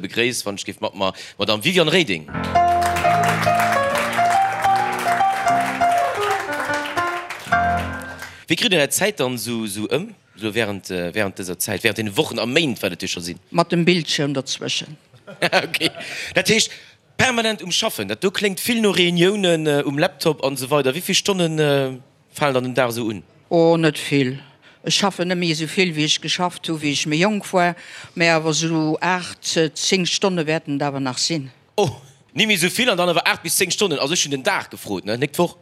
Begréisst wann ech géif mat mer d'Madame Viviane Reding. Wéi kritt Dir Är Zäit dann esou ëm, esou während während dëser Zäit, während deene Wochen a Méint, wat et jo scho sinn? Mat dem Bildschirm derzwëschen. Ok, dat heescht permanent um Schaffen. Dat do kléngt vill no Reuniounen um Laptop an esou weider. Wéi vill Stonnen falen dann den Dag esou un? Oh, net vill. Ech schaffen net méi esou vill, wéi ech geschafft hu wéi ech méi jonk war, mä awer esou 8, 10 Stonne wäerten et awer nach sinn. Oh, ni méi esou vill an dann awer 8 bis 10 Stonnen. Also ech hunn den Dag gefrot, ne, nik d'Woch.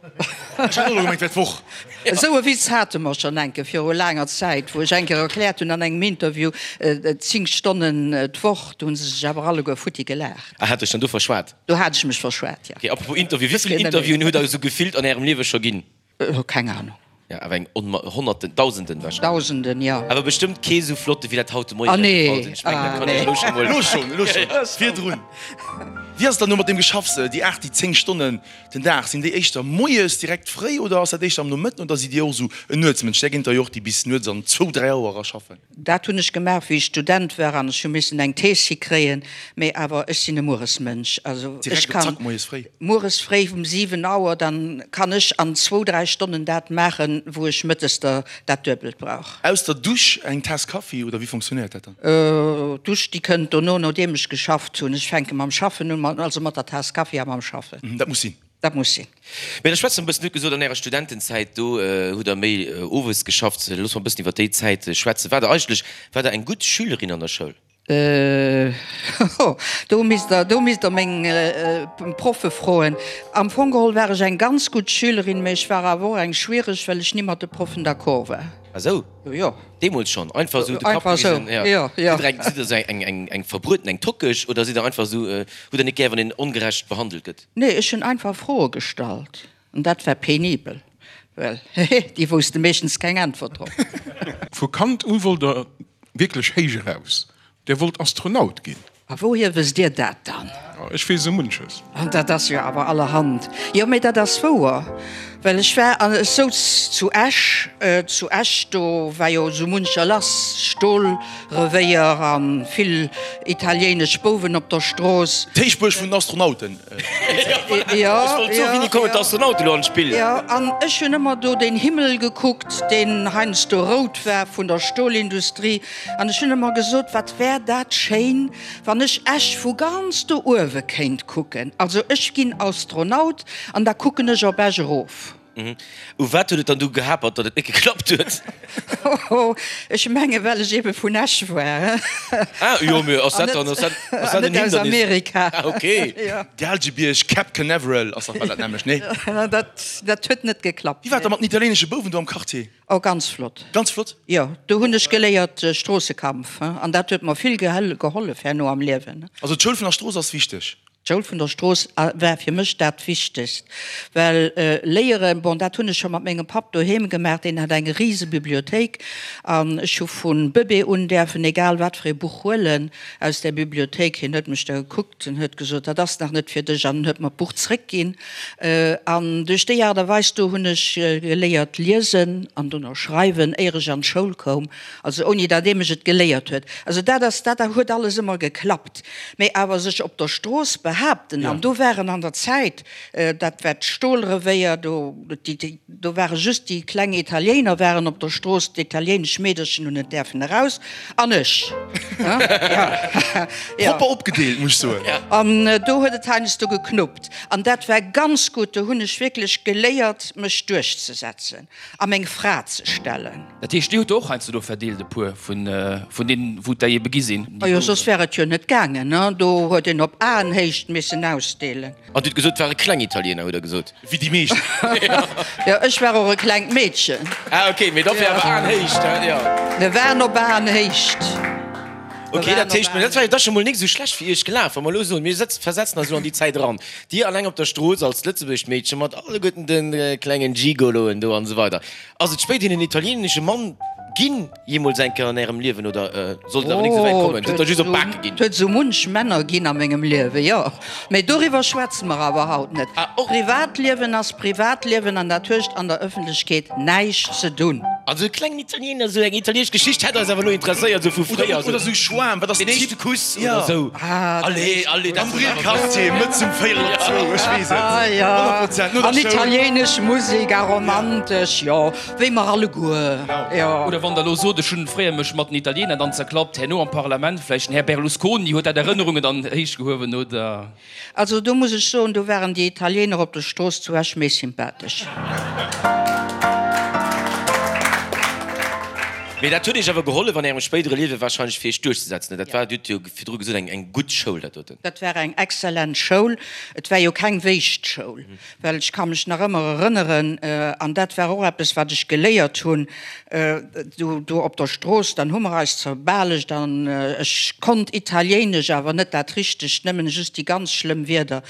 Ech hat och elo gemengt, wär d'Woch. Esou e Witz hate mer schonn enke viru laanger Zäit, wou ech eng Kéier erkläert hunn an engem Interview, 10 Stonnen d'Woch, do hu se sech awer alleguer futti gelaacht. Ah, hat dech dann do verschwat? Do hat ech mech verschwat, jo. Ok, apropos Interview, wéi vill Interviewen hutt der esou gefillt an ärem Liewe scho ginn? Keng Ahnung. Jo, awer eng Onma Honnerten, Dausenden wahrscheinlech. Dausenden, jo. Awer bestëmmt kee sou flotte wéi dat haut de Moien Ah nee, gefall sinn. Ech mengen, dat kann ech elo scho mol. Elo schonn, elo schonn, virdrun. Wéi ass et dann elo mat deem Geschaffs, déi 8, déi 10 Stonnen den Dag, sinn déi éischter moies direkt fréi oder ass dat éischter am Nomëtten oder sidd Dir och esou en Nuetsmënsch? Där ginn et der jo och, déi bis nuets an zwou, 3 Auer era schaffen. Dat hunn ech gemaach, wéi ech Student war an ech hu missen eng Thees hikréien. Mee awer ech sinn e Mueresmënsch. Also ech kann mueres fréi um 7 Auer, dann kann ech an zwou, dräi Stonnen dat maachen, wou ech mëttes der dat Duebelt brauch. Aus der Dusch eng Taass Kaffi oder wéi fonctionnéiert dat dann? D'Dusch déi kënnt dono, nodeem ech geschafft hunn. Ech fänke mam Schaffen un, also mat der Taass Kaffi a mam Schaffen. Dat muss sinn. Dat muss sinn. Mee da schwätze mer e bëssen, Dir hutt gesot, an Ärer Studentenzäit, do hutt Der méi owes geschafft. Loosse mer e bëssen iwwer déi Zäit schwätzen. Waart Der eigentlech, waart Der eng gutt Schülerin an der Schoul? Do misst Der, do misst Der meng Proffe froen. Am Fong geholl war ech eng ganz gutt Schülerin, mee ech war awer och eng schwiereg, well ech ni mat de Proffen d'accord war. Ah sou? Jo, jo. Deemools schonn? Einfach esou de Kapp Einfach esou, gewisen? Jo, jo. Sidd Der eng, sidd Der esou eng, eng, eng Verbrueten, eng Tockeg oder sidd Der einfach esou, hutt Der net gär, wann een ongerecht behandelt gëtt? Nee, ech hunn einfach Froe gestallt an dat war penibel, well hehe, déi wousste meeschtens keng Äntwert drop. Vu Kand u wollt der wierklech héich eraus, Der wollt Astronaut ginn. A wouhier wësst Dir dat dann? Ech weess esou munches. An dat ass jo awer allerhand. Jo, mee dat ass wouer, well ech war an ech souz zu Esch, zu Esch, do war jo esou muncher lass, Stolrevéier a vill italiéinesch Bouwen op der Strooss. D'Héichbuerg vun den Astronauten. Jo, Ech wollt soen, wéini kommen d'Astronauten elo an d'Spill? Jo, an ech hunn ëmmer do den Himmel gekuckt, deen heiansdo rout war vun der Stolindustrie. An ech hunn ëmmer gesot, wat wär dat schéin, wann ech Esch vu ganz do uewe kéint kucken. Also ech ginn Astronaut an da kucken ech op Esch erof. U wat huet et dann du gehapert, datt et net geklappt huet? Hoho, ech menge well ech ebe vun Esch war. Ah jo, mee ass dat dann, ass dat, ass dat en Hindernis? An net aus Amerika. Ah okay. Gaalgebierg, Cap Canaveral ass dach bal dat nämmlecht, nee? Dat, dat huet net geklappt. Wéi war et da mat den italiéinesche Bouwen do am Quartier? Oh, ganz flott. Ganz flott? Jo, do hunn ech geléiert Stroossekampf, an dat huet mer vill gehollef herno am Liewen. Also d'Schoul vun der Strooss ass wichteg? D'Schoul vun der Strooss war fir mech dat Wichtegst, well léieren, bon, dat hunn ech scho mat mengem Papp doheem gemaach, deen hat eng rise Bibliothéik an ech hu vu Bëbee un däerfen egal wat fir ee Buch huelen aus där Bibliothéik. Hien huet mech da gekuckt en huet gesot, dat ass nach net fir dech an en huet mer d'Buch zréckginn. An duerch déi Aart a Weis do hunn ech geléiert liesen an dono schreiwen, éier ech an d'Schoul koum, also ouni datt ee mech et geléiert huet. Also dat ass, dat huet alles ëmmer geklappt. Mee awer sech op der Strooss behaapten, an do waren an der Zäit, dat war d'Stolrevéier, do, déi, do ware just déi kleng Italiéiner waren op der Strooss, d'italiéinesch Meederchen hunn net däerfen eraus, an ech. Ja. Propper opgedeelt, muss ech soen. An do huet et heiansdo geknuppt. An dat war ganz gutt, do hunn ech wierklech geléiert, mech duerchzesetzen a meng Fra ze stellen. Dat heescht, Dir hutt der och heiansdo do verdeelt, e puer vun deenen, wou et der ebe gi sinn? Majo, soss wär et jo net gaangen, ne? Do huet een op Aenhéicht missen ausdeelen. An Dir hutt gesot, et ware kleng Italiener, hutt Der gesot? Wéi déi meescht. Jo, ech war och e klengt Meedchen. Ah, okay, mee dofir awer Aenhéicht, he? Jo. Mir waren op Aenhéicht. Ok, dat heescht, dat war jo da scho mol nik esou schlecht fir Iech gelaf. Wa mer elo soen, mir setzen, versetzen eis elo an déi Zäit eran, Dir alleng op der Strooss als lëtzebuergescht Meedche mat alleguerten de klengen Gigoloen do an esou weider. Ass et spéiderhin en italieenesche Mann ginn, jeemools eng Kéier an Ärem Liewen, oder sollt et awer nik esou wäit kommen, sidd Der just op d'Bake ginn? Et huet esou munch Männer ginn a mengem Liewen, jo. Mee doriwwer schwätze mer awer haut net. Privatliewen ass Privatliewen an dat huecht an der Ëffentlechkeet näischt ze dunn. Also e klengen Italiener, esou eng italienesch Geschicht hätt eis awer elo interesséiert, esou vu fréier. Oder esou Schwaarm, wat ass den éischte Kuss oder esou. Allez, allez, dat. Am Brillquartier, mëtts um véierel op zwou, ech weess et. Ah ja, 100% no der an Schoul. italienesch Musek a romantesch, jo, wéi mer alleguer, jo. Oder wann Der elo sot, ech hunn fréier mech mat den Italiener dann zerklappt, herno am Parlament, vläicht den Här Berlusconi huet dat Erënnerungen dann héichgehuewen, oder? Also do muss ech soen, do waren déi Italiener op der Strooss zu Esch méi sympathesch. Mee dat huet Iech awer gehollef an Ärem spéidere Liewe wahrscheinlech fir Iech duerchzesetzen. Dat war, Dir hutt jo virdru gesot, eng eng gutt Schoul dat doten. Dat war eng exzellent Schoul. Et war jo keng Wéischt-Schoul, well ech ka mech nach ëmmer erënneren, an dat war och eppes wat ech geléiert hunn, Do, do op der Strooss, dann hu mer eis zerbalegt an ech konnt Italiéinesch, awer net dat Richtegt, nëmmen just déi ganz schlëmm Wierder.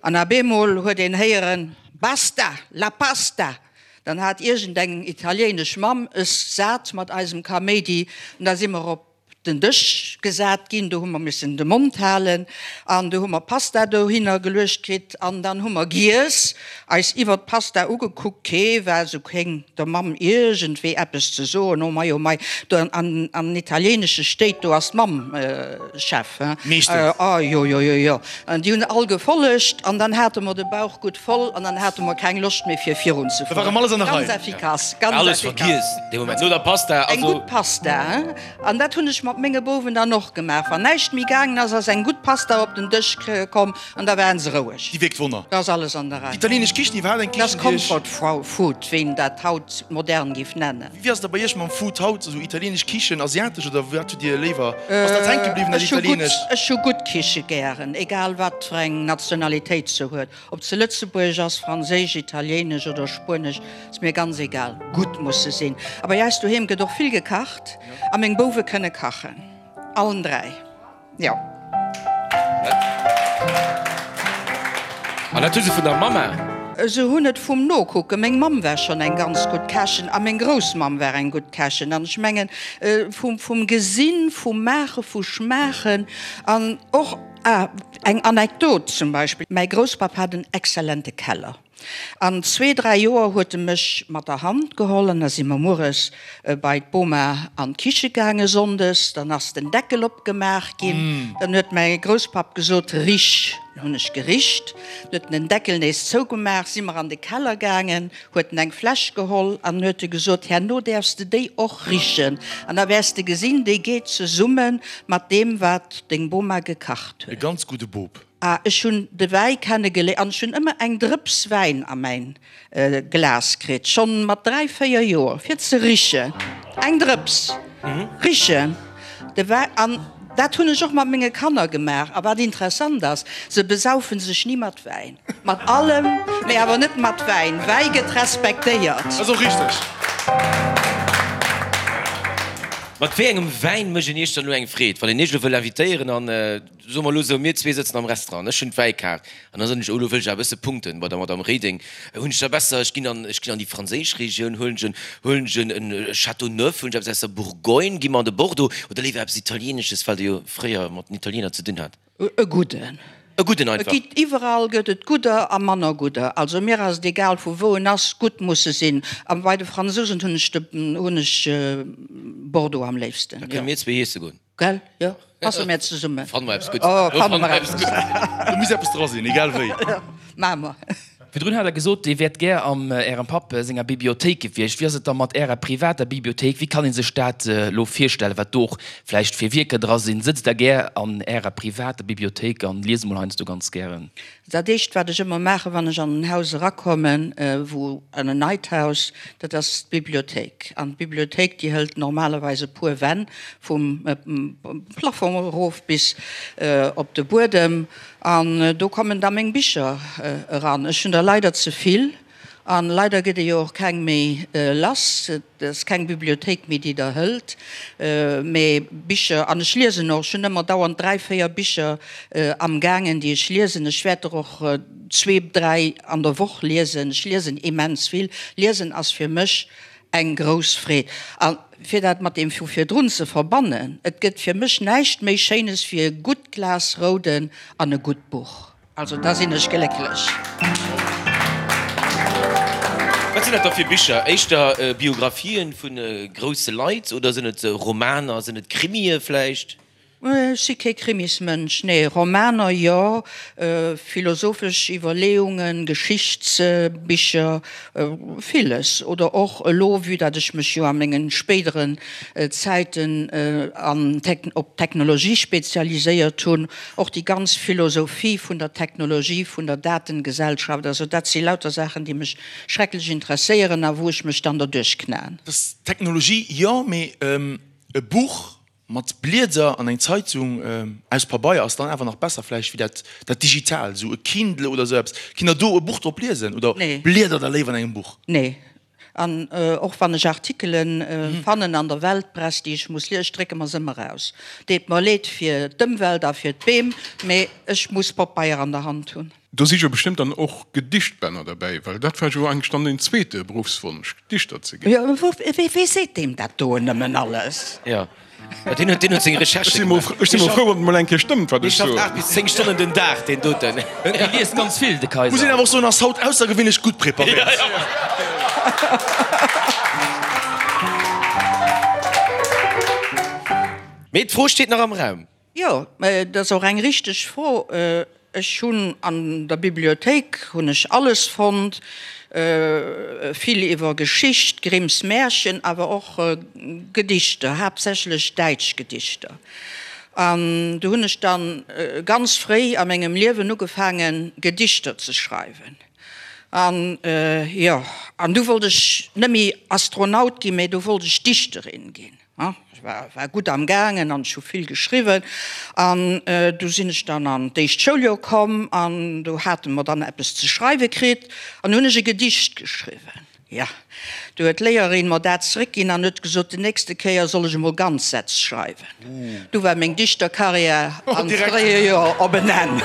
An ab eemol huet een héieren, Basta! La pasta! Dann hat iergendeng italiéinesch Mamm es sat mat eisem Kaméidi an da si mer op den Dësch gesat ginn, do hu mer missen de Mond halen an du hu mer Pasta dohinner geluecht kritt an dann hu mer giess, eis iwwert d'Pasta ugekuckt, kee war esou kéng der Mamm iergendwéi eppes ze soen, oh mei, oh mei, do an an italieenesche Stéit, do ass d'Mamm Chef, hein, Meeschtens. oh jo, jo, jo, jo, an déi hunn all gefollegt an dann hate mer de Bauch gutt voll an dann hate mer keng Loscht méi fir virun ze Da war erëm alles an der Ganz Rei. effikass, ganz Alles effikass. vergiess dee Moment, no der Pasta, Eng also. gutt Pasta, hein. An dat hunn ech mat menge Bouwen dann och gemaach. Wann näischt méi gaangen ass, ass eng gutt Pasta op den Dësch komm an da waren se roueg. Déi wierkt Wonner. Da ass alles an der Rei. Déi italienesch Kichen, iwwerhaapt eng Dat ass Kichen, déi iech. Comfort Food, wéi een dat haut modern géif nennen. Wéi ass et da bei iech mam Food haut? Esou italienesch Kichen, asiatesch oder wat hutt Dir léiwer? Ass dat hänke bliwwen, dat Ech hu gutt, italienescht? ech hu gutt Kiche gären, egal wat fir eng Nationalitéit se huet. Ob se lëtzebuergesch ass, franséisch, italiéinesch oder spuenesch, ass mir ganz egal, gutt muss se sinn. A bei eis doheem gëtt och vill gekacht a meng Bouwe kënne kachen, allen 3, jo. An dat hu se vun der Mamma? Se hunn et vum Nokucken. Meng Mamm war schonn eng ganz gutt Kächen a meng Groussmamm war eng gutt Kächen. An ech mengen, vum Gesinn, vum Maachen, vu Schmaachen an och, Ah, eng Anekdot zum Beispill, Mäi Grousspapp hat en exzellente Keller. An zwee, dräi Joer huet e mech mat der Hand geholl an da si mer mueres bei d'Boma an d'Kiche gaange sonndes. Dann ass den Deckel opgemaach ginn. Dann huet mäi Grousspapp gesot, Rich! Dann hunn ech gericht. Dann huet en den Deckel nees zougemaach, si mer an de Keller gaangen. Huet en eng Fläsch geholl an huet e gesot, Herno däerfs de déi och richen an da wäers de gesinn, déi geet zesumme mat deem, wat deng Boma gekacht E huet. ganz gudde Bop. Ah, ech hunn de Wäi kennegeléiert an ech hunn ëmmer eng Drëps Wäin a mäin Glas kritt, schonn mat 3, 4 Joer, fir ze richen. Eng Drëps richen de Wäi. An dat hunn ech och mat menge Kanner gemaach. A wat interessant ass, se besaufen sech ni mat Wäin. Mat allem, mee awer net mat Wäin. Wäi gëtt respektéiert. Ass och richteg. Mat wéi engem Wäin mécht een Iech dann elo eng Freed, wann een Iech elo wëll invitéieren an, soe mer elo esou, mir zwee sëtzen am Restaurant, ech hunn d'Wäikaart an da soen ech, oh elo wëll ech awer e bësse punkten bei der Madame Reding, hunn ech da besser, ech ginn an, ech ginn an déi franséisch Regioun, huelen ech en, huelen ech en e Châteauneuf, huelen ech eppes aus der Bourgogne, gi mer an de Bordeaux oder léiwer eppes Italienesches, well Der jo fréier mat den Italiener ze dinn hat? E gudden. E gudden einfach. Et gitt iwwerall gëtt et gudder a manner gudder. Also mir ass et egal vu wou en ass, gutt muss e sinn. A bei de Fransousen hunn ech de hunn ech Bordeaux am léifsten. Da kënne mir zwee iesse goen. Gell? Jo, passe mir zesummen. Fanne mer eppes Guddes. Oh, fanne mer eppes Guddes. Do muss eppes dra sinn, egal wéi. Maache mer. Virdrun hat Der gesot, Dir wäert gär am Ärem Papp senger Bibliothéik gewiescht. Wéi ass et da mat Ärer privater Bibliothéik? Wéi kann ee sech dat elo virstellen, wat do och vläicht fir Wierker dra sinn? Sëtzt Der gär an Ärer privater Bibliothéik an liest emol heiansdo ganz gären? Dat éischt, wat ech ëmmer maachen, wann ech an en Haus erakommen, wou, an en neit Haus, dat ass d'Bibliothéik. An d'Bibliothéik, déi hëlt normalerweis e puer Wänn, vum Plafong erof bis op de Buedem. An do kommen da meng Bicher eran. Ech hunn der leider ze vill an leider gëtt ee jo och keng méi lass. Et ass keng Bibliothéik méi, déi der hëlt. Mee Bicher, an ech liesen och, ech hunn ëmmer dauernd 3, 4 Bicher amgaangen, déi ech liesen. Ech wäert der och zwee, dräi an der Woch liesen. Ech liesen immens vill. Liesen ass fir mech Eng grouss Freed. A fir dat mat deem vu virdrun ze verbannen, et gëtt fir mech näischt méi Schéines wéi e gutt Glas Rouden an e gutt Buch. Also da sinn ech glécklech. Wat sinn dat da fir Bicher? Éischter Biographien vu grousse Leit oder sinn et Romaner, sinn et Krimie vläicht? Ech si kee Krimismënsch, nee. Romaner jo, philosophesch Iwwerleeungen, Geschichtsbicher, villes. Oder och elo, vue dat ech mech jo a mengen spéideren Zäiten an op d'Technologie spezialiséiert hunn, och déi ganz Philosophie vun der Technologie, vun der Datengesellschaft. Also dat si lauter Saachen, déi mech schrecklech interesséieren a wou ech mech dann derduerch knaen. Technologie jo, mee e Buch Mat Blieder an eng Zeitung aus Pabeier ass dann awer nach besser vläicht wéi dat dat digital, esou e Kindle oder esou eppes. Kinnt der do e Buch drop liesen oder bliedert der léiwer an engem Buch? Nee. An och wann ech Artikelen fannen an der Weltpress, déi ech muss liesen, ech drécke mer se ëmmer aus. Deet mer leed fir d'Ëmwelt a fir d'Beem, mee ech muss Popeier an der Hand hunn. Do si jo bestëmmt dann och Gedichtbänner derbäi, well dat war jo eigentlech dann den zweete Beruffswonsch, Dichter ze ginn. Jo, wee seet deem dat do nëmmen alles? Jo, deen huet, deen huet seng Recherche gemaach. Ech si mol frou, wann et mol eng Kéier stëmmt, wat ech soen. Dee schafft 8 bis 10 Stonnen den Dag, deen doten. Dee liest ganz vill, de Kayser. Muss een awer och soen, ass haut aussergewéinlech gutt preparéiert. Mee d'Fro steet nach am Raum. Jo, dat ass och eng richteg Fro. Ech hunn an der Bibliothéik hunn ech alles fonnt, vill iwwer Geschicht, Grimms Märchen, awer och Gedichter, haaptsächlech däitsch Gedichter. An do hunn ech dann ganz fréi a mengem Liewen ugefaangen, Gedichter ze schreiwen. An jo, an du wollt ech net méi Astronaut ginn, mä du wollt ech Dichterin ginn. Ech war gutt am gaangen an ech hu vill geschriwwen. An du sinn ech dann an d'éischt Schouljoer komm an do hate mer dann eppes ze schreiwe kritt an hunn ech e Gedicht geschriwwen. Jo, du huet d'Léierin mer dat zeréckginn an huet gesot, déi nächste Kéier soll ech emol ganz Sätz schreiwen. Du war meng Dichterkarriär am fréie Joer op en Enn.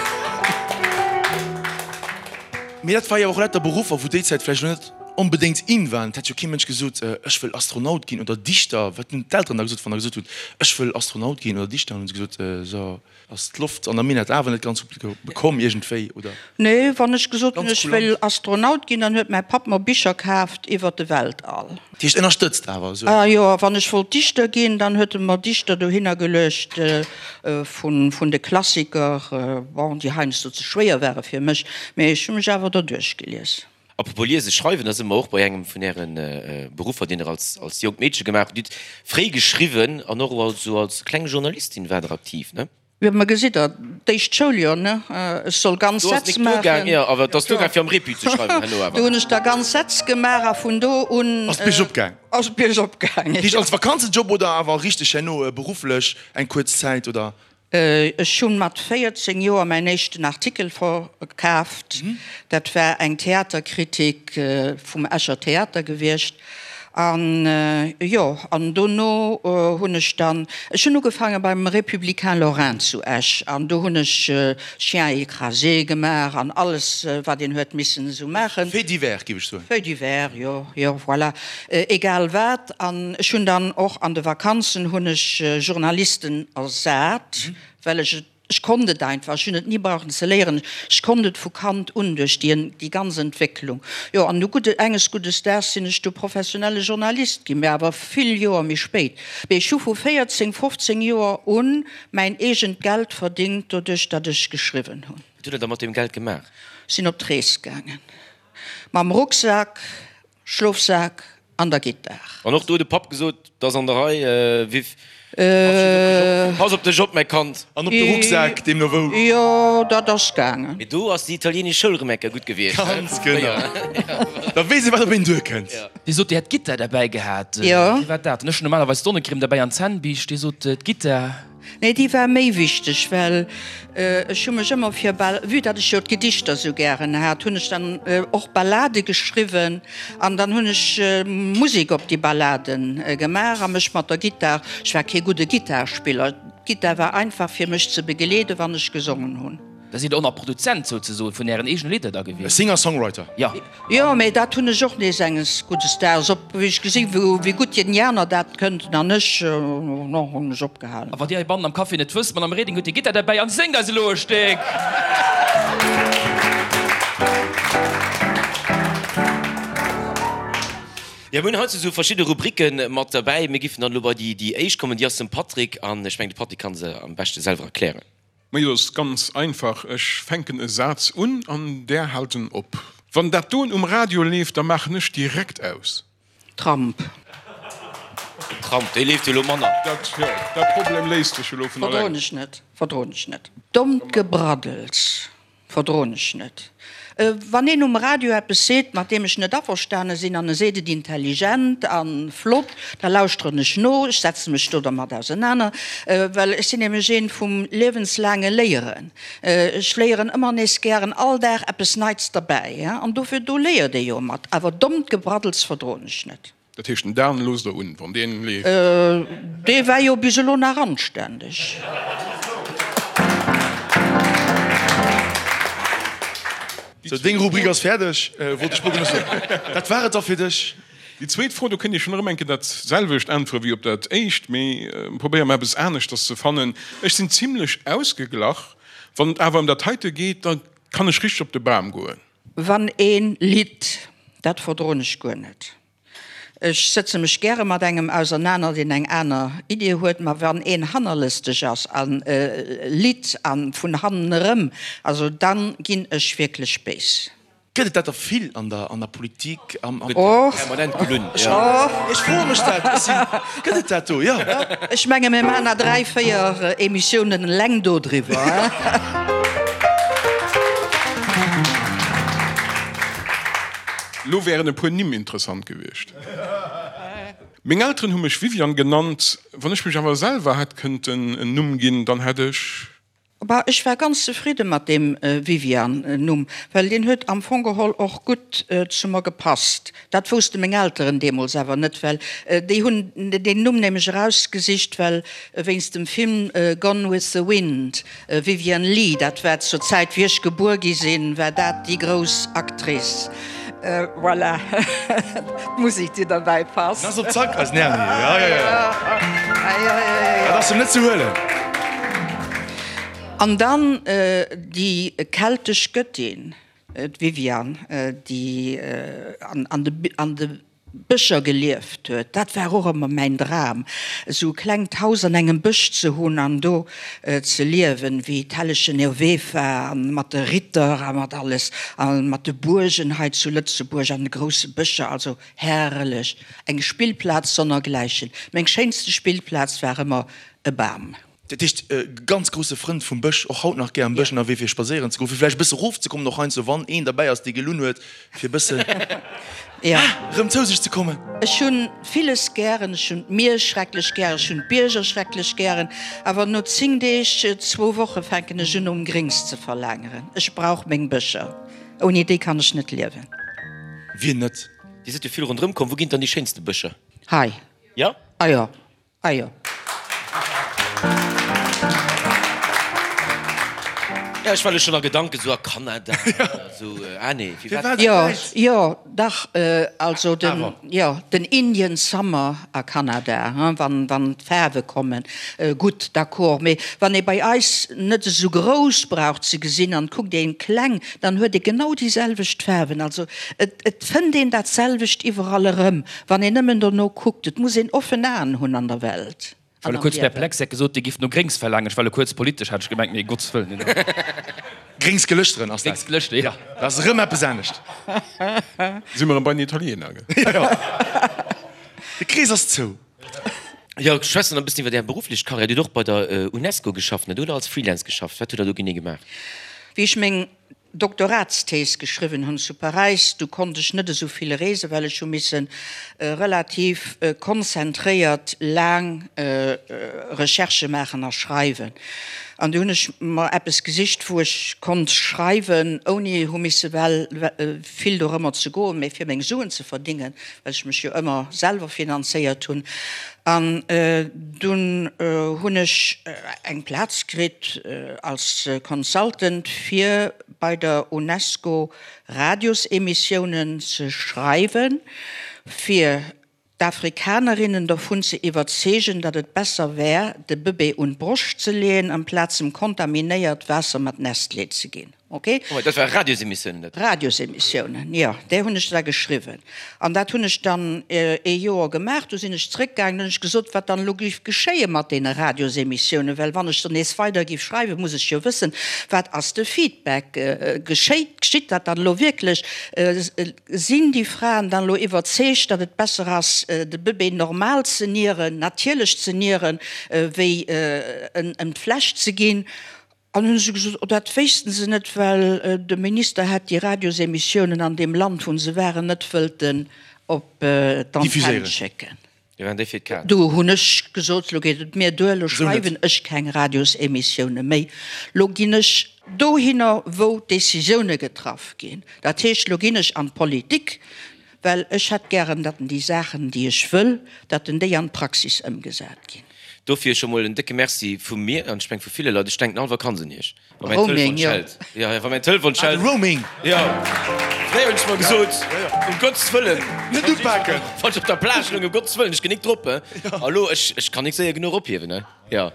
Mee dat war jo och lauter Beruffer, wou déi Zäit vläicht elo net onbedéngt in waren. Et hätt jo kee Mënsch gesot, ech wëll Astronaut ginn oder Dichter. Wat hunn d'Elteren da gesot, wann der gesot hutt, ech wëll Astronaut ginn oder Dichter? Hunn se gesot, so ass d'Loft an der Minett awer net ganz gutt bekomm iergendwéi, oder? Nee, wann ech gesot hunn, ech wëll Astronaut ginn, dann huet mäi Papp mer Bicher kaaft iwwer de Weltall. Dat heescht ënnerstëtzt awer esou? Ah jo, a wann ech wollt Dichter ginn, dann huet e mer Dichter dohinner geluecht vun de Klassiker, bon, déi heiansdo ze schwéier ware fir mech, mee ech hu mech awer derduerch gelies. Apropos liesen, schreiwen, da si mer och bei engem vun Äre Beruffer, deen Der als, als jonkt Meedche gemaach hutt. Dir hutt fréi geschriwwen an och als, esou als kleng Journalistin waart Der aktiv, ne? Jo, ma gesitt Der, d'éischt Schouljoer, ne, ech soll ganz Do ass Sätz nik duergaang, maachen. jo, awer et ass duergaang fir am Repu ze schreiwen herno awer. Do hunn ech da ganz Sätz gemaach a vun do un. Ass d'Bierg opgaang? Ass d'Bierg opgaang, jo. Heescht als Vakanzenjob oder awer richteg herno berufflech eng kuerz Zäit, oder? Ech hunn mat 14 Joer mäin éischten Artikel verkaaft. Dat war eng Theaterkritik vum Escher Theater gewiescht. An jo, an dono hunn ech dann, ech hunn ugefaange beim Républicain Lorrain zu Esch an do hunn ech Chien écrasé gemaach an alles wat een huet missen esou maachen. Fait divers, géif ech soen. Fait divers, jo, jo, voilà. Egal wat. An ech hunn dann och an de Vakanzen hunn ech Journalisten ersat, well ech et, ech konnt et einfach, ech hunn et ni brauchen ze léieren, ech konnt et vu Kand un duerch déi déi ganz Entwécklung. Jo, an du gudde, enges guddes Daags sinn ech du professionelle Journalist ginn, mä awer vill Joer méi spéit. Mee ech hu vu 14, 15 Joer un mäin eegent Geld verdingt doduerch, datt ech geschriwwen hunn. Wat hutt Der da mat deem Geld gemaach? Sinn op d'Rees gaangen mam Rucksak. Schlofsak an der Gittar. An och do huet de Papp gesot, 't ass an der Rei, Viv, pass op dech op, mäi Kand. An op de Rucksak, deemno wou. Jo, dat ass gaangen. Mee do ass déi italienesch Schoul rëm eng Kéier gutt gewiescht, he? Ganz genau. Da weess ee, wat op een duerkënnt. Dir sot, Dir hätt d'Gittar derbäi gehat. Jo. Wéi war dat? Ech hunn normalerweis d'Sonnecrème derbäi an d'Zännbiischt. Dir sot, d'Gittar. Nee, déi war méi wichteg, well ech hu mech ëmmer fir Bal, vue datt ech jo d'Gedichter sou gären hat, hunn ech dann och Ballade geschriwwen an dann hunn ech Musek op déi Ballade gemaach a mech mat der Gittar, ech war kee gudde Gittarspiller, d'Gittar war einfach fir mech ze begeleeden, wann ech gesongen hunn. Da sidd Der och nach Produzent souzesoen vun Ären eegene Lidder da E gewiescht? Singer-Songwriter. Jo. Jo, mee dat hunn ech och nees enges guddes Daags op, wéi ech gesinn hu wéi gutt déi aner dat kënnten an ech, no hunn ech opgehalen. A wann Dir heibannen am Café net wësst, d'Madame Reding huet hir Gittar derbäi an séngt eis elo e Stéck. Jo, mir hunn haut esou verschidde Rubricke mat derbäi. Mir giffen dann elo bei déi déi éischt kommen, déi ass dem Patrick an ech mengen de Patrick kann se am beschte selwer erklären. Majo, ass ganz einfach, ech fänken e Saz un an där haalt en op. Wann dat doen um Radio leeft, da maachen ech direkt aus. Tramp. Den Tramp, dee leeft jo elo manner. Dat, jo, dat Problem léist sech elo vun alleng. Verdroen ech net, verdroen ech net. Dommt Gebraddels. Verdroen ech net. Wann een um Radio eppes seet, mat deem ech net averstane sinn, an e seet et intelligent a flott, da lauschteren ech no, ech setze mech do dermat ausenaner, well ech sinn nämlech een vum liewenslaange Léieren. Ech léieren ëmmer nees gären all Dag eppes Neits derbäi, an dofir, do léiert ee jo mat. Awer dommt Gebraddels verdroen ech net. Dat heescht, den Dan loosst der un, wann deen leeft? Dee war jo bis elo nach anständeg. Sou, deng Rubrik ass fäerdeg, wollt ech mol soen. Dat war et da fir dech. Déi zweet Fro, do kënnt Dir schonn erëm eng Kéier dat selwecht äntwere wéi op dat éischt, mee probéiere mer eppes aneschters ze fannen. Ech sinn zimlech ausgeglach. Wann et awer ëm dat heite geet, da kann ech richteg op de Bam goen. Wann ee litt, dat verdroen ech guer net. Ech sëtze mech gäre mat engem ausernaner, deen eng aner Idee huet, ma wann een hannerlësteg ass a litt a vun hannen erëm, also dann ginn ech wierklech béis. Gëtt et dat da vill an der an der Politik? Am, am. Och. Permanent gelunn, jo. Ech froe mech dat, ech sinn, gëtt et dat do, jo? Ech menge mir maachen nach 3, 4 Emissiounen eleng dodriwwer. Lo wären e puer Nimm interessant gewiescht. Meng Elteren hu mech Viviane genannt. Wann ech mech awer selwer hätt kënnten en Numm ginn, dann hätt ech. Bah, ech war ganz zefridde mat deem Viviane-Numm, well deen huet am Fong geholl och gutt zu mer gepasst. Dat wousste meng Elteren deemools awer net, well déi hunn deen Numm nämlech erausgesicht, well wéinst dem Film Gone with the Wind. Vivien Leigh, dat war zur Zäit wéi ech gebuer gi sinn, war dat déi grouss Actrice. Voilà, d'Musek déi derbäi passt. Ass op Zack, eisen Erny, jo jo jo, dat ass em net ze huelen. An dann déi keltesch Göttin, d'Viviane, déi an de Bëscher gelieft huet. Dat war och ëmmer mäin Dram, esou e klengt Haus an engem Bësch ze hunn an do ze liewen, wéi d'Hellechen Nervefa an mat de Ritter a mat alles a mat de Buergen hei zu Lëtzebuerg an de grousse Bëscher. Also herrlech, eng Spillplaz sonnergläichen. Meng schéinste Spillplaz war ëmmer e Bam. Dat heescht, ganz grousse Frënd vum Bësch, och haut nach gär am Bësch ënnerwee fir spadséieren ze goen, fir vläicht e bësse rofzekommen, och heiansdo wann een derbäi ass, dee gelunn huet, fir e bëssen erëm zou sech ze kommen. Ech hunn villes gären, ech hunn d'Mier schrecklech gären, ech hunn d'Bierger schrecklech gären, awer no 10 Deeg, zwou Woche fänken ech un nom Gréngs ze verlaangeren. Ech brauch meng Bëscher, ouni déi kann ech net liewen. Wien net? Dir sidd jo vill ronderëm komm, wou ginn et dann déi schéinste Bëscher? Hei. Jo? Ah jo. Ah jo. Ja, ech war elo schonn a Gedanken esou a Kanada oder esou. Ah nee, firwat? Jo, jo, dach, also den, jo, den Indian Summer a Kanada, hein, wann, wann d'Faarwe kommen, gutt, d'accord. Mee wann ee bei eis net esou grouss brauch ze gesinn an kuckt een kleng, dann huet ee genau déi selwecht Faarwen. Also et, et fënnt een dat selwecht iwwerall erëm. Wann een nëmmen dono kuckt, et muss een offen Aen hunn an der Welt Ech war an elo am kuerz Liewen. perplex, hätt gesot, Dir gifft no Gréngs verlaangen. Ech war elo kuerz politesch, hat ech gemengt, mee Gottes Wëllen, nee, nee. Gréngs Gelëschteren ass dat. Gréngs Gelëschter, jo. Dat ass erëm eppes anescht. Si mer erëm bei den Italiener, gell? Jo, jo. De Krees ass zou. Jo, schwätzen e bëssen iwwer Är berufflech Karriär. Dir hutt och bei der Unesco geschafft, net, oder als Freelance geschafft? Wat hutt Der do genee gemaach? Wéi ech meng Doktoratsthees geschriwwen hunn zu Paräis, du konnt ech net esou vill reesen, well ech hu misse relativ konzentréiert laang Recherchë maachen a schreiwen. An du hunn ech mer eppes gesicht, wou ech konnt schreiwen, ouni hu misse well vill dorëmmer ze goen, mä fir meng Suen ze verdingen, well ech mech jo ëmmer selwer finanzéiert hunn. An dunn hunn ech eng Plaz kritt als Consultant fir bei der Unesco Radiosemissiounen ze schreiwen, fir d'Afrikanerinnen dovun ze iwwerzeegen, datt et besser wär, de Bëbee un d'Broscht ze leeën, amplaz em kontaminéiert Waasser mat Nestlé ze ginn. Ok. Oh, dat war Radiosemissiounen, dat? Radiosemissiounen, jo. Där hunn ech da geschriwwen. An dat hunn ech dann ee Joer gemaach. Du sinn ech zrëckgaangen, hunn ech gesot, wat dann elo géif geschéie mat deene Radiosemissiounen, well wann ech dann nees weider géif schreiwen, muss ech jo wëssen, wat ass de Feedback, geschéit, geschitt dat dann elo wierklech, sinn déi Fraen dann elo iwwerzeegt, datt et besser ass, de Bëbee normal ze nieren, natierlech ze nieren, wéi en ëm d'Fläsch ze ginn. An hunn se gesot, oh dat wéissten se net, well de Minister hätt déi Radiosemissiounen an deem Land, wou se waren, net wëllten op d'Antenne schécken. Do hunn ech gesot, lo geet et mir duer, lo schreiwen ech keng Radiosemissioune méi, lo ginn ech dohinner, wou d'Decisioune getraff ginn. Dat heescht, lo ginn ech an d'Politik, well ech hätt gären, datt déi Saachen, déi ech wëll, datt déi an d'Praxis ëmgesat ginn. Dofir scho mol en décke Merci vu mir, an ech meng vu ville Leit. Ech denken all Vakanz un Iech, wa mäin Telefon schellt. Jo, jo, wa mäin Telefon schellt. Ah, de Roaming! Jo, fréier hunn ech mer gesot, um Gottes Wëllen, Net upaken! Wann ech op der Plage loung, um Gottes Wëllen, ech ginn nik drop, he. A lo, ech, ech kann nik séier genuch ophiewen, he. Jo,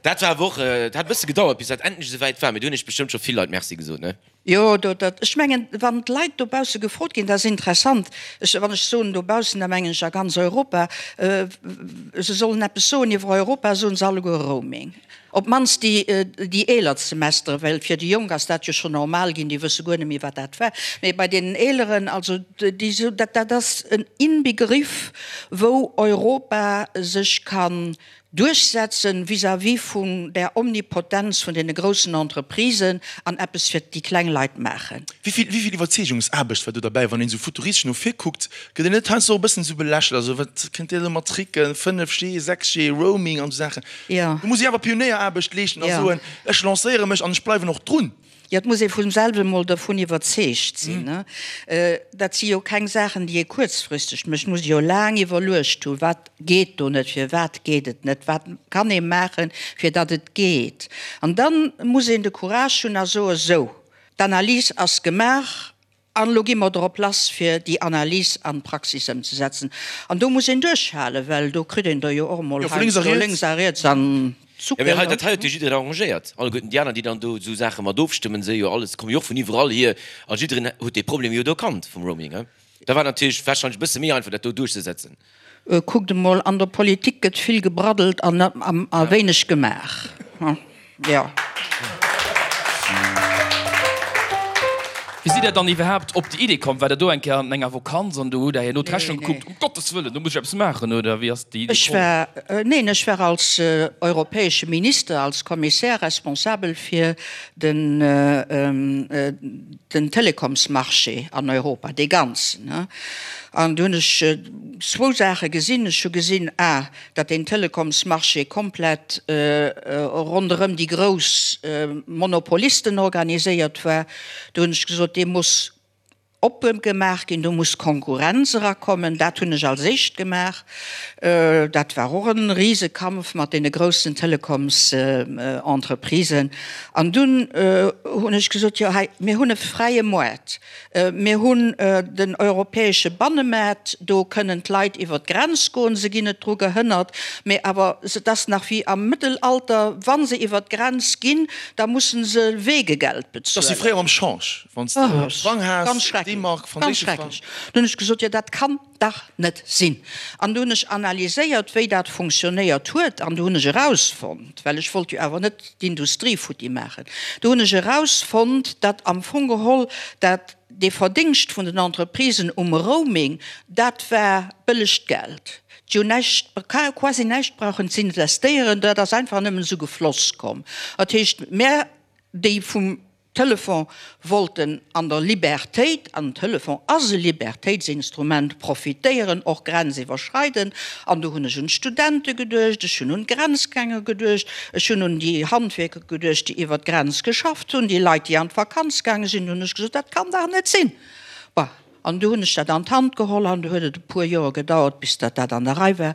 dat war awer och, et hat e bësse gedauert, bis dat endlech esou wäit war, mee do hunn ech bestëmmt scho vill Leit Merci gesot, ne? Jo, do, dat, ech mengen, wann d'Leit dobausse gefrot ginn, dat ass interessant, ech, wann ech soen dobaussen, da mengen ech a ganz Europa, se sollen eppes soen iwwer Europa, soen se alleguer Roaming. Op d'mannst déi, déi eeler Semestere, well fir déi Jonk ass dat jo schonn normal ginn, déi wësse guer net méi, wat dat war. Mee bei deenen Eeleren, also déi soen, dat, dat ass en Inbegriff, wou Europa sech kann Duerchsetzen vis-à-vis vun där Omnipotenz vun deene groussen Entreprisen an eppes fir déi kleng Leit maachen. Wéi vill, wéi vill Iwwerzeegungsaarbecht war do derbäi? Wann een esou futuristesch no vir kuckt, gëtt een net heiansdo och e bëssen esou belächelt, also wat kënnt Dir elo mat Tricken, 5G, 6G, Roaming an esou Saachen. Jo. Do muss ee awer Pionéieraarbecht leeschten a soen, ech lancéiere mech an ech bleiwen och drun. Jo, et muss ee vun selwer emol dervun iwwerzeegt sinn. Dat si jo keng Saachen, déi ee kuerzfristeg mécht. Et muss ee jo laang iwwerluecht hunn, wat geet do net, firwat geet et net, wat kann ee maachen, fir datt et geet. An da muss een de Courage hunn a soen, Sou, d'Analys ass gemaach an elo gi mer drop lass, fir déi Analys an d'Praxis ëmzesetzen. An do muss een duerchhalen, well do kritt een der jo och emol heiansdo lénks a riets an Jo, mee hei, dat hei huet jo jiddereen arrangéiert. Alleguerten déi aner, déi dann do esou Saache mat ofstëmmen, se jo alles, komme jo och vun iwwerall hier. A jiddereen huet dee Problem jo do kannt vum Roaming, he. Da war natierlech warscheinlech e bësse méi einfach, dat do duerchzesetzen. Kuckt emol, an der Politik gëtt vill gebraddelt an a wéineg gemaach, jo. Wéi sidd Der dann iwwerhaapt op déi Idee komm? Waart Der do eng Kéier an enger Vokanz an do hutt Der herno d'Rechnung gekuckt, um Gottes Wëllen, do muss ech eppes maachen, oder wéi ass déi Idee Ech war, neen, ech war als europäesche Minister, als Kommissär responsabel fir den, den Telekomsmarché an Europa, dee ganzen. An do hunn ech zwou Saache gesinn. Ech hu gesinn, a datt deen Telekomsmarché komplett ronderëm déi grouss Monopolisten organiséiert war. Do hunn ech gesot, dee muss oppe gemaach ginn, do muss Konkurrenz erakommen. Dat hunn ech als éischt gemaach. Dat war och e Risekampf mat deene groussen Telekomsentreprisen. An dunn hunn ech gesot, jo hei, mir hunn e fräie Moart. Mir hunn den europäesche Bannemaart, do kënnen d'Leit iwwer d'Grenz goen, se ginn net dru gehënnert. Mee awer et ass nach wéi am Mëttelalter, wa se iwwer d'Grenz ginn, da musse se Weegegeld bezuelen. Dat ass wéi fréier mam Change, wann s de Frang has, D-Mark, franséische Frang. Ganz schrecklech. Dunn hunn ech gesot, jo dat kann dach net sinn. An du hunn ech analyséiert, wéi dat funktionéiert huet, an du hunn ech erausfonnt, well ech wollt jo awer net d'Industrie futti maachen, du hunn ech erausfonnt, datt am Fong geholl dat dee Verdingscht vun den Entreprisen um Roaming, dat war bëllegt Geld. Déi hunn näischt, quasi näischt brauchen z'investéieren, dat ass einfach nëmmen esou gefloss komm. Dat heescht, mär, déi vum Telefon wollten an der Libertéit, an den Telefon ass e Libertéitsinstrument, profitéieren, och grenziwwerschreidend. An do hunn ech un d'Studente geduecht, ech hunn un d'Grenzgänger geduecht, ech hunn un déi Handwierker geduecht, déi iwwer d'Grenz geschafft hunn, déi Leit, déi an d'Vakanz gaange sinn. Do hunn ech gesot, dat kann dach net sinn. Bon, an du hunn ech dat an d'Hand geholl an du huet et e puer Joer gedauert, bis datt dat an der Rei war.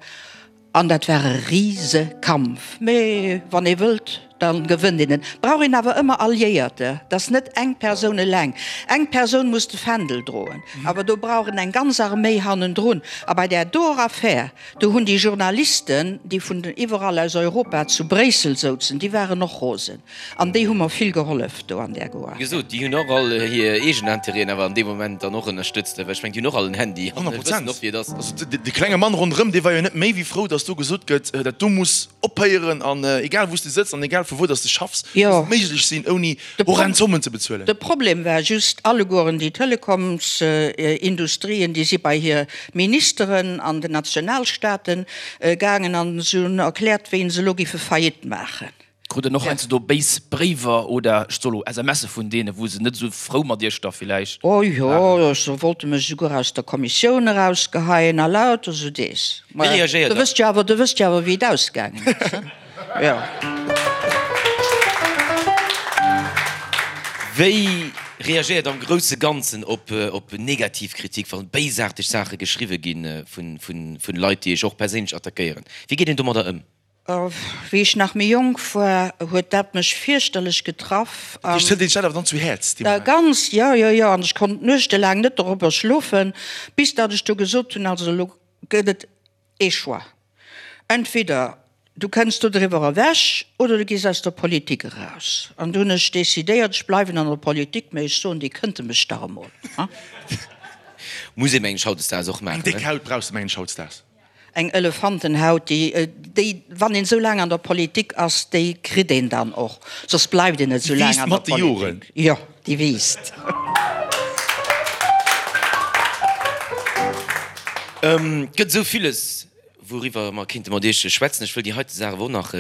An dat war e Risekampf. Mee wann ee wëllt. Dann gewënnt een. Et brauch een awer ëmmer Alliéierter, et ass net eng Persoun eleng. Eng Persoun muss de Fändel droen, awer do brauch en eng ganz Arméi hannendrun. A bei där doer Affär, do hunn déi Journalisten, déi vun iwwerall aus Europa zu Bréissel souzen, déi waren och rosen. An déi hu mer vill gehollef do an där Goar. Wéi gesot, déi hunn och all hir eegen Intérêten awer an deem Moment dann och ënnerstëtzt, well ech mengen, déi hunn och all en Handy an wëssen och, wéi et ass. Also de klenge Mann ronderëm, dee war jo net méi wéi frou, datt do gesot gëtt, dat do muss ophéieren an egal wou s de sëtz an egal vu wou datt s de schaffs, muss et méiglech sinn, ouni horrend Zommen ze bezuelen. De Problem war just, allegueren déi Telekomsindustrien, déi si bei hir Ministeren an den Nationalstaaten gaangen an se hunn erkläert, wéi se elo géife Faillite maachen. Krut der och heiansdo do béis Bréiwer oder, ech soe lo, SMSe vun deenen, wou se net esou frou mat iech da villäicht Oh jo, waren? se wollte mech esouguer aus der Kommissioun erausgeheien a lauter esou dees. Wéi reagéiert Der der? wësst jo awer, der wësst jo awer, wéi et ausgaangen ass, ne? Jo. Wéi reagéiert am grousse Ganzen op op negativ Kritik, wann béisaarteg Saache geschriwwe gi vun vun Leit, déi iech och perséinlech attackéieren? Wéi geet een domadder ëm? Wéi ech nach méi jonk war, huet dat mech fierchterlech getraff. Dat heescht, hëlt een sech dat awer dann zu Häerz dee Moment? Ganz, jo, jo, jo. An ech konnt nuechtelaang net dorobber schlofen, bis datt ech du gesot hunn, also elo gëtt et ee Choix, entweder du kënns do driwwer ewech oder du gees aus der Politik eraus. An du hunn ech decidéiert, ech bleiwen an der Politik, mä ech soen, déi kënnte mech dach emol. Muss ee mengen ech hautdesdaags och maachen. Eng déck Haut brauchs de mengen ech hautdesdaags. Eng Elefantenhaut, déi, déi, wann een esou laang an der Politik ass, déi kritt een dann och, soss bleift een net esou Déi laang wiisst an der mat de Joren. Politik. Jo, déi wiisst. Et gëtt esou villes, wouriwwer mer kéinte mat Iech schwätzen. Ech wëll déi heite Saach awer och nach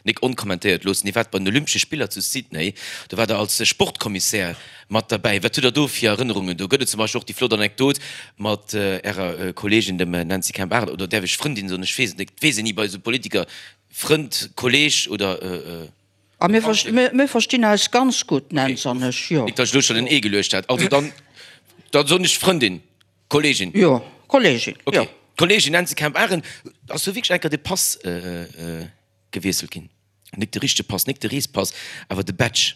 nik onkommentéiert loossen. Dir waart bei den Olympesche Spiller zu Sydney, do waart Der als Sportkommissär Mat derbäi. Wat hutt der do fir Erënnerungen? Do gëtt et zum Beispill och déi flott Anekdot mat Ärer Kolleegin, dem Nancy Kemp-Arendt, oder däerf ech Frëndin soen? Ech weess et net, et weess een ni bei esou Politiker, Frënd, Kolleeg oder A mir mir verstinn eis ganz gutt, d'Nancy an ech, jo. Nik datt ech elo schonn en Ee geluecht hätt. Also dann, da soen ech Frëndin, Kolleegin. Jo, Kolleegin, jo. Okay, Kolleegin Nancy Kemp-Arendt, ass do wierklech eng Kéier de Pass gewiesselt ginn? Nik de richtege Pass, nik de Reespass, awer de Badge.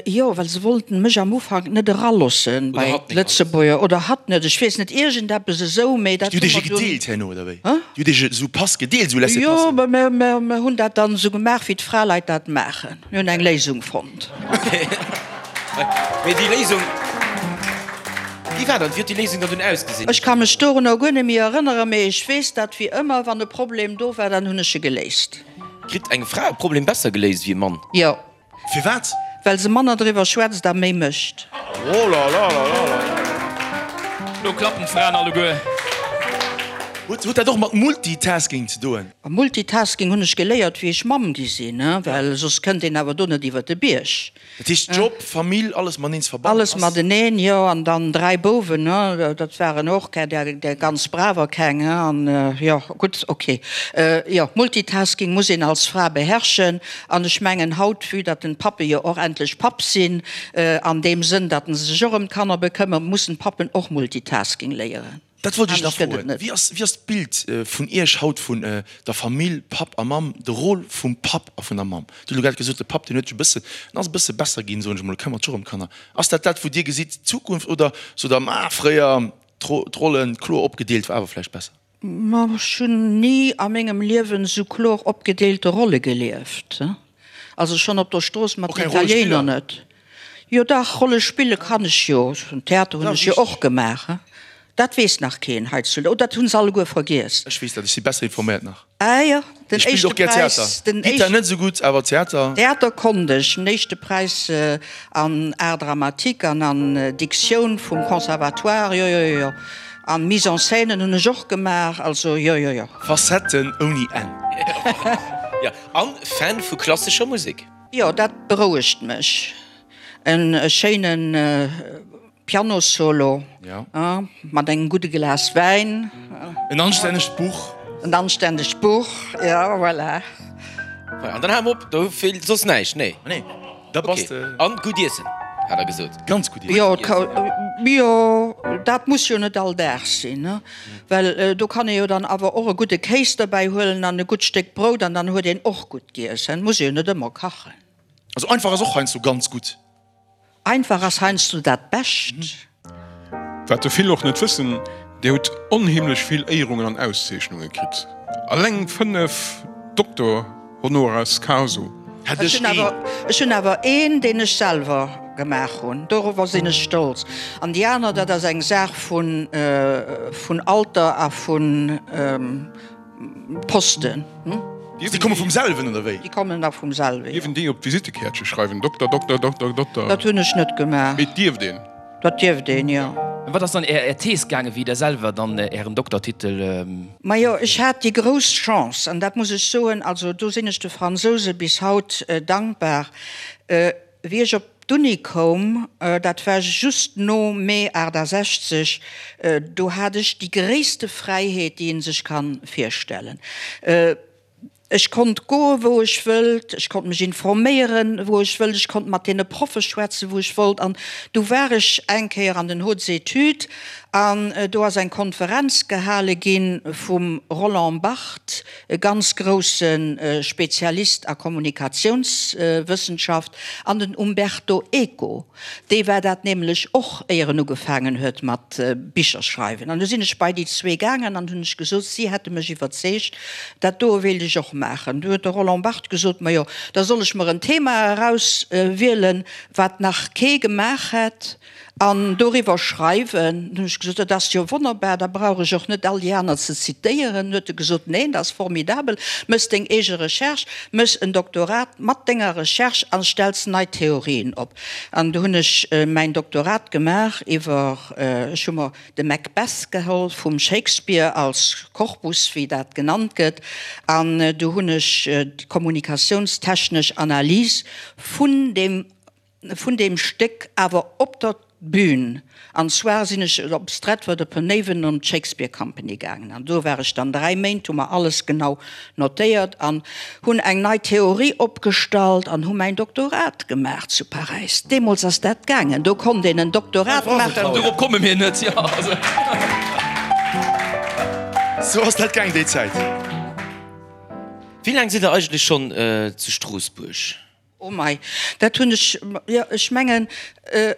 Jo, well se wollten mech am Ufank net eralossen bei d'Lëtzebuerger, oder hatt net, ech weess net, iergendeppes esou, mee dat Déi hu hutt iech mer e dunn. gedeelt herno, oder wéi? Hä? Déi hutt iech esou Pass gedeelt, esou Jo, Laissez-passer? mä mer, mer, mer hunn dat dann esou gemaach, wéi d'Fraleit dat maachen. Mir hunn eng Léisung fonnt. Mee déi Léisung, wéi war dann, wéi huet déi Léisung dann dunn ausgesinn? Ech ka mech dorunner guer net méi erënneren, mee ech weess, datt wéi ëmmer, wann e Problem do war, dann hunn ech e geléist. Kritt eng Fra e Problem besser geléist wéi e Mann? Jo. Firwat? Well se manner driwwer schwätzt a méi mécht. Oh la la la la la. Lo klappen d'Fraen alleguer. Huet dat och mat Multitasking ze doen? Multitasking hunn ech geléiert wéi ech Mamm gi sinn, well soss kënnt een awer do net iwwer de Bierg. Dat heescht Job, Famill, alles mateneen ze verbannen Alles ass? mateneen, jo. An dann 3 Bouwen, ne, dat waren och keng, där, där ganz braver keng, he. An jo, gutt, ok. Jo, Multitasking muss een als Fra beherrschen. An ech mengen haut, vue datt den Pappe jo och endlech Papp sinn, an deem Sënn, datt en sech och ëm d'Kanner bekëmmert, mussen d'Pappen och Multitasking léieren. Dat wollt ech nach Anescht gëtt et froen. net. Wéi ass, wéi ass d'Bild vun Iech haut vun der Famill, Papp a Mamm, de Rôle vum Papp a vun der Mamm? Dir hutt elo grad gesot, de Papp, deen huet sech e bëssen, en ass e bësse besser ginn, soen ech emol, e këmmert sech och ëm d'Kanner. Ass dat dat, wou Dir gesitt, d'Zukunft, oder sot Der, ma fréier, d'Rollen kloer opgedeelt war awer vläicht besser? Ma ech hunn ni a mengem Liewen esou kloer opgedeelte Rolle gelieft. Also schonn op der Strooss mat den Italiener net. Jo dach, Rolle spille kann ech jo. Theater hunn ech jo och gemaach. Dat weess nach keen hei zu. Oh, dat hunn se alleguer vergiess. Ech weess dat, ech si besser informéiert nach. Ah jo, den Ech spillt éischte och gär Präis, Theater. den Gittar éischten. net esou gutt, awer Theater. Theater konnt ech. Den éischte Präis an Art dramatique an an Diktioun vum Conservatoire, jo, jo, jo, jo. An Mise en scène hunn ech och gemaach, also jo, jo, jo. Facetten ouni Enn. Jo, an Fan vu klassescher Musek. Jo, dat berouegt mech. En schéinen Pianossolo mat engem gudde Glas Wäin. En anstännegt Buch. En anstännegt Buch, jo, voilà. An dann hale mer op, do feelt soss näischt, nee? Nee, da bass de. An gutt iessen, hat der gesot. Ganz gutt iessen. Jo, jo. Dat muss jo net all Dag sinn, well do kann ee jo dann awer och e gudde Kéis derbäi huelen an e gutt Stéck Brout an dann huet een och gutt giess. Et muss ee jo net ëmmer kachen. Also einfach ass och heiansdo ganz gutt. Einfach ass heiansdo dat Bescht. Wat der vill och net wëssen, Dir hutt onheemlech vill Éierungen an Auszeechnunge kritt. Alleng 5 Doktor honoris causa. Hätt ech een. Ech hunn awer een, deen ech selwer gemaach hunn. Dorower sinn ech stolz. An déi aner, dat ass eng Saach vun Alter a vun. Posten. Déi komme vum selwen, oder wéi? Déi kommen da vum selwen, jo. Dierf een déi op d'Visittekäertche schreiwen? Dokter, Dokter, Dokter, Dokter. Dat hunn ech net gemaach. Mee et dierft een? Dat dierft een, jo. Ëm wat ass dann Är Thees gaangen, wéi Der selwer dann Ären Doktertitel. Majo, ech hat déi grouss Chance, an dat muss ech soen, also do sinn ech de Fransouse bis haut dankbar, Wéi ech op d'Uni koum, dat war just no Mee 68, do hat ech déi gréisste Fräiheet, déi ee sech ka virstellen. Ech konnt goe wou ech wëllt, ech konnt mech informéieren, wou ech wëllt, ech konnt mat deene Proffe schwätzen, wou ech wollt. An du war ech eng Kéier an den Hautes Études an do ass eng Konferenz gehale gi vum Roland Barthes, e ganz grousse Spezialist a Kommunikatiounswëssenschaft, an den Umberto Eco, dee war dat nämlech och, éier en ugefaangen huet mat Bicher schreiwen. An du sinn ech bei déi zwee gaangen an hunn ech gesot, si hätte mech iwwerzeegt, dat doe wéilt ech och maachen. Du huet de Roland Barthes gesot, majo, da soll ech mer en Thema erauswielen, wat nach kee gemaach hätt. An doriwwer schreiwen. Hunn ech gesot, dat ass jo wonnerbar, da brauch ech och net all déi aner ze zitéieren. Huet e gesot, neen, dat ass formidabel, méchs deng eege Recherche, méchs en Doktorat mat denger Recherche a stells nei Theorien op. An du hunn ech mäin Doktorat gemaach iwwer, ech hu mer de Macbeth geholl vum Shakespeare als Korpus, wéi dat genannt gëtt, an du hunn ech d'kommunikatiounstechnesch Analys vun deem vun deem Stéck awer op der Bühn, an zwar sinn ech op Stratford-upon-Avon an d'Shakespeare Company gaangen an do war ech dann 3 Méint, hu mer alles genau notéiert an hunn eng nei Theorie opgestallt an hu mäin Doktorat gemaach zu Paräis. Deemools ass dat gaangen, do konnt een en Doktorat maachen. Dorop komme mir net, jo. Sou ass dat gaang déi Zäit. Wéi laang sidd der eigentlech schonn zu Stroossbuerg? Oh mei, dat hunn ech, jo, ech mengen,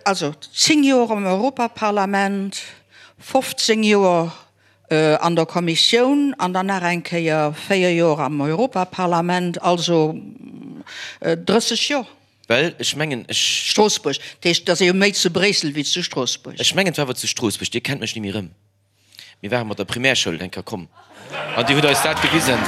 also 10 Joer am Europaparlament, 15 Joer an der Kommissioun an dann nach eng Kéier 4 Joer am Europaparlament, also 30 Joer. Well ech mengen, ech. Stroossbuerg, dat heescht, et ass ee jo méi zu Bréissel wéi zu Stroossbuerg. Ech mengen, et war awer zu Stroossbuerg. Dir kennt mech ni méi erëm. Mir ware mat der Primärschoul eng Kéier komm an Dir hutt eis dat gewisen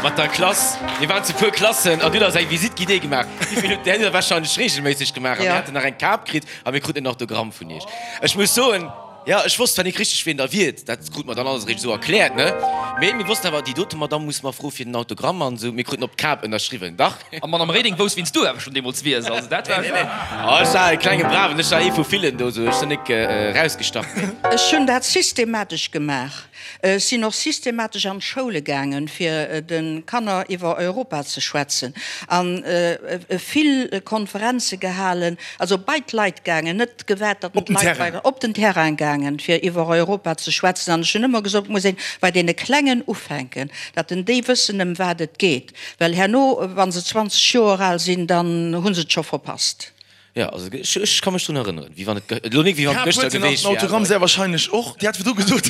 mat der Klass. Mir waren zu puer Klassen an Dir hutt eis eng Visite guidée gemaach. Wéi vill hutt Där hutt Der warscheinlech reegelméisseg gemaach a mir haten nach eng Kap kritt a mir kruten en Autogramm vun Iech. Ech muss soen, jo, ech wosst zwar nik richteg wien Der wiert, dat krute mer dann alles eréischt esou erkläert, ne, mee mir wossten awer, déi dote Madamm muss mer froe fir den Autogramm an esou. Mir kruten op d'Kap ënnerschriwwen, dach. A Madame Reding wousst wien s du awer schon deemols wiers, also dat war. Nee, nee, oh, ech war e klenge Braven, ech war ee vu villen do, sou ech sinn nik erausgestach. Ech hunn dat systematesch gemaach. Ech sinn och systematesch an d'Schoule gaangen, fir de Kanner iwwer Europa ze schwätzen a vill Konferenze gehalen, also bei d'Leit gaangen, net gewaart, datt d'Leit bei, op den Terrain gaangen, fir iwwer Europa ze schwätzen. An ech hunn ëmmer gesot, et muss een bei deene Klengen ufänken, datt en déi wëssen, ëm wat et geet. Well herno, wa se 20 Joer al sinn, dann hu se et scho verpasst. Jo, also ech, ech ka mech drun erënneren, wéi wann et, elo nik wéi wann et Kap gëschter huet se nach geweecht den wier, Autogramm awer. sehr wahrscheinlech och. Dir hat virdru gesot,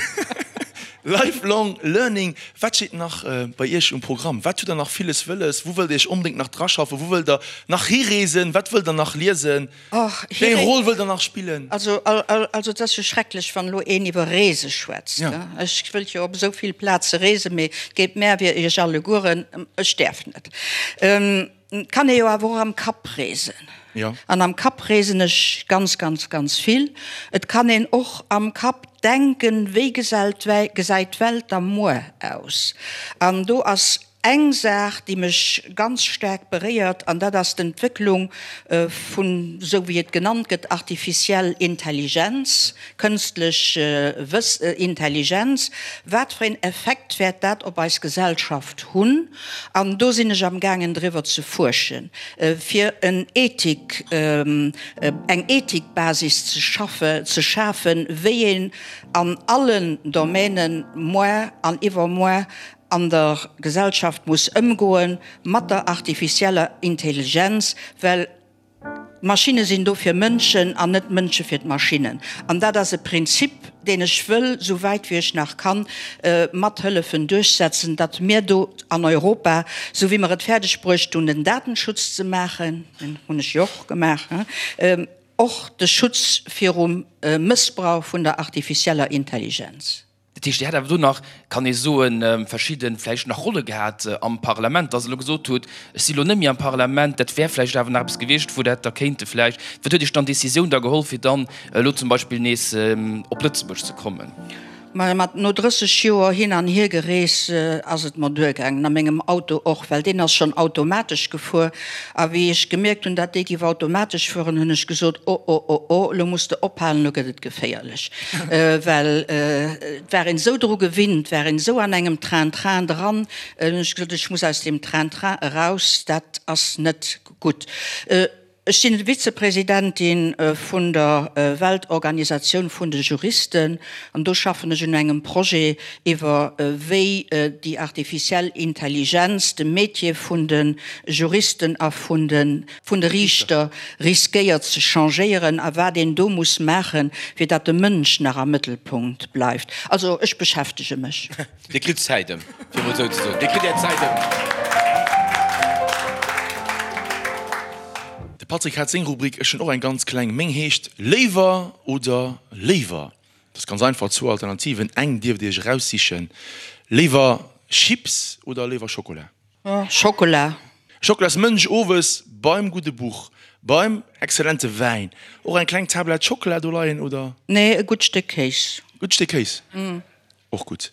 Lifelong Learning. Wat steet nach bei Iech um Programm? Wat hutt Der nach villes wëlles? Wou wëllt Der Iech onbedéngt nach draschaffen? Wou wëllt Der nach hireesen? Wat wëllt Der nach liesen? Och, Wéi eng Roll wëllt Der nach spillen? Also, also et ass jo schrecklech, wann elo een iwwer Reese schwätzt. Ech wëllt jo op esou vill Plaze reesen, mee et geet mär wéi Iech allegueren, ech däerf net. Et kann ee jo awer och am Kapp reesen. An am Kapp reesen ech ganz, ganz, ganz vill. Et kann een och am Kapp denken, wéi gesäit d'Welt da muer aus? An do ass. Eng Saach, déi mech ganz staark beréiert, an dat ass d'Entwécklung vun, esou wéi et genannt gëtt, artificiell Intelligenz, kënstlech Intelligenz. Wat fir een Effekt wäert dat op eis Gesellschaft hunn? An do sinn ech amgaangen driwwer ze fuerschen, fir en Ethik, eng Ethikbasis ze schaffe, ze schafen, wéi een an allen Domänen moar an iwwermoar an der Gesellschaft muss ëmgoe mat der artificieller Intelligenz, well d'Maschinne sinn do fir Mënschen an net d'Mënsche fir d'Maschinnen. An dat ass e Prinzip, deen ech wëll, esou wäit wéi ech nach kann, mat hëllefen duerchsetzen, datt mir do an Europa, esou wéi mer et fäerdeg bruecht hunn, den Datenschutz ze maachen, deen hunn ech jo och gemaach, och de Schutz virum Mëssbrauch vun der artificieller Intelligenz. Dat heescht, Dir hätt awer do nach, kann ee soen, verschidde vläicht nach Rolle gehat am Parlament, dass Der elo gesot hutt, ech si lo net méi am Parlament, dat wär vläicht awer nach eppes gewiescht, wou Der hätt da kéinte vläicht. Wat huet Iech dann d'Décisioun da geholl, fir dann elo zum Beispill nees op Lëtzebuerg ze kommen? Majo, mat no 30 Joer hin an hier gerees ass et mer duergaangen, a mengem Auto och, well deen ass schonn automatesch gefuer. A wéi ech gemierkt hunn, dat dee giff automatesch fueren, hunn ech gesot, O, o, o, o, elo muss de ophalen, elo gëtt et geféierlech. Well et war een esou dru gewinnt, war een esou an engem Train-train dran, hunn ech gesot, ech muss aus deem Train-train eraus, dat ass net gutt. Ech sinn Vizepresidentin vun der Weltorganisatioun vun de Juristen an do schaffen ech un engem Projet iwwer wéi déi artificiell Intelligenz de Métier vun de Juristen a vun de vun de Riichter riskéiert ze changéieren a wat een do muss maachen, fir datt de Mënsch nach am Mëttelpunkt bleift. Also ech beschäftege mech. Dir kritt Zäit ëm, fir emol esou ze soen. Dir kritt Är Zäit ëm. De Patrick hat seng Rubrik, ech hunn och eng ganz kleng. Meng heescht Léiwer oder léiwer. Dat ass ganz einfach, zwou Alternativen, eng dierft Dir Iech eraussichen. Léiwer Chips oder léiwer Schokola? Schokola. Schokolasmënsch owes beim gudde Buch, beim exzellente Wäin och eng kleng Tablett Schockela do leien, oder? Nee, e gutt Stéck Kéis. Gutt Stéck Kéis, och gutt.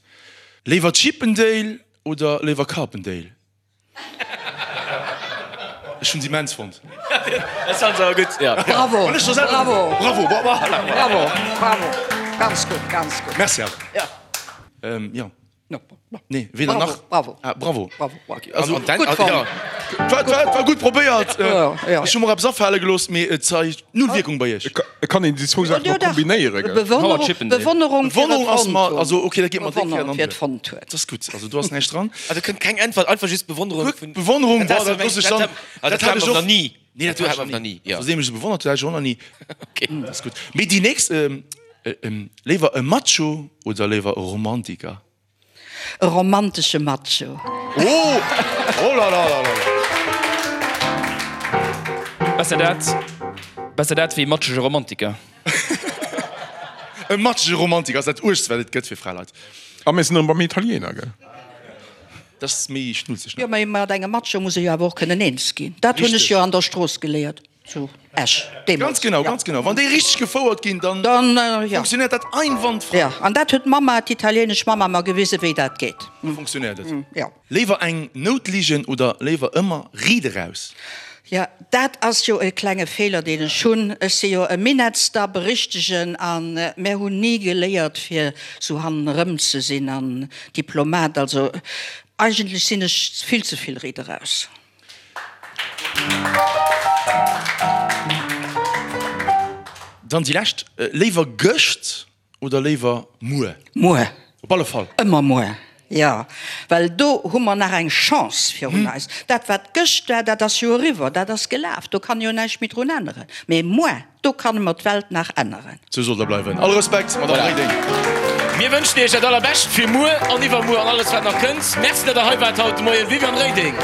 Léiwer Chippendale oder léiwer Carpendale? Ech hunn se immens fonnt. Dat fand se awer gutt, ja. Bravo, bravo, bravo, bravo, bravo, ganz gutt, ganz gutt. Merci awer. Ja. Nee, weder nach. Bravo. Ah, bravo. Bravo. Also, An, an, Gutt fonnt. ja. War, war, war gutt probéiert. Ja, ja. Ech hu mer eppes afale gelooss, mee et zeigt null Wierkung bei iech. Et kann een déi zwou Saachen Jo, och dach. kombinéieren, gell? Bewonnerung, Chippendale. Bewonnerung fir et Bewonnerung ass fonnt mer, hunn. also okay, dat geet mer déck fir an Bewonnerung fir et Hand. fonnt huet. Dat ass gutt, also do ass näischt dran. Also kënnt keng Äntwert, einfach just Bewonnerung vun. Bewonnerung, Dat boah, dat looss ech dann. Dat Dat hat hat ech nach och. ni. Nee, dat hat hat mer ech nach ni. Ja. Also, seem ech se bewonnert, dat hat ech och nach ni. Okay. Dat ass gutt. Mee déi nächst, léiwer e Macho oder léiwer e Romantiker? E romantesche Macho. Oh! Oh la la la la la! Besser dat, besser dat wéi e matschege Romantiker. E matschege Romantiker ass dat Uergst, wat et gëtt fir Fraleit. A mir sinn erëm beim Italiener, gell? Dat ass méi schnulzeg, ne? Jo, mä mat engem Macho muss ee jo awer och kënnen eens ginn. Dat hunn ech jo an der Strooss geléiert. Zu Esch deemools. Ganz genau, ganz genau. Wann déi richteg gefouert ginn, dann funktionéiert dat einwandfrei. Jo, an dat huet d'Mamma, d'italienesch Mamma, mer gewisen, wéi dat geet. Da funktionéiert et. Jo. Léiwer eng Nout ligen oder léiwer ëmmer riit eraus? Jo, dat ass jo e klenge Feeler, deen ech hunn. Ech si jo e Minettsdapp, e richtegen, a mär hunn ni geléiert, fir sou hannenerëm ze sinn an Diplomat. Also eigentlech sinn ech vill ze vill riit eraus. Dann déi lescht, Léiwer gëscht oder léiwer muer? Muer. Op alle Fall. Ëmmer muer, jo. Well do hu mer nach eng Chance virun eis. Dat, wat gëscht war, dat ass jo eriwwer, dat ass gelaf, do kann jo näischt méi drun änneren. Mee muer, Do kanne mer d'Welt nach änneren. Sou soll der bleiwen. All Respekt, Madame Reding. Mir wënschen Iech dat allerbescht fir muer an iwwermuer an alles wat nach kënnt. Merci dat der hei waart haut de Moien. Viviane Reding.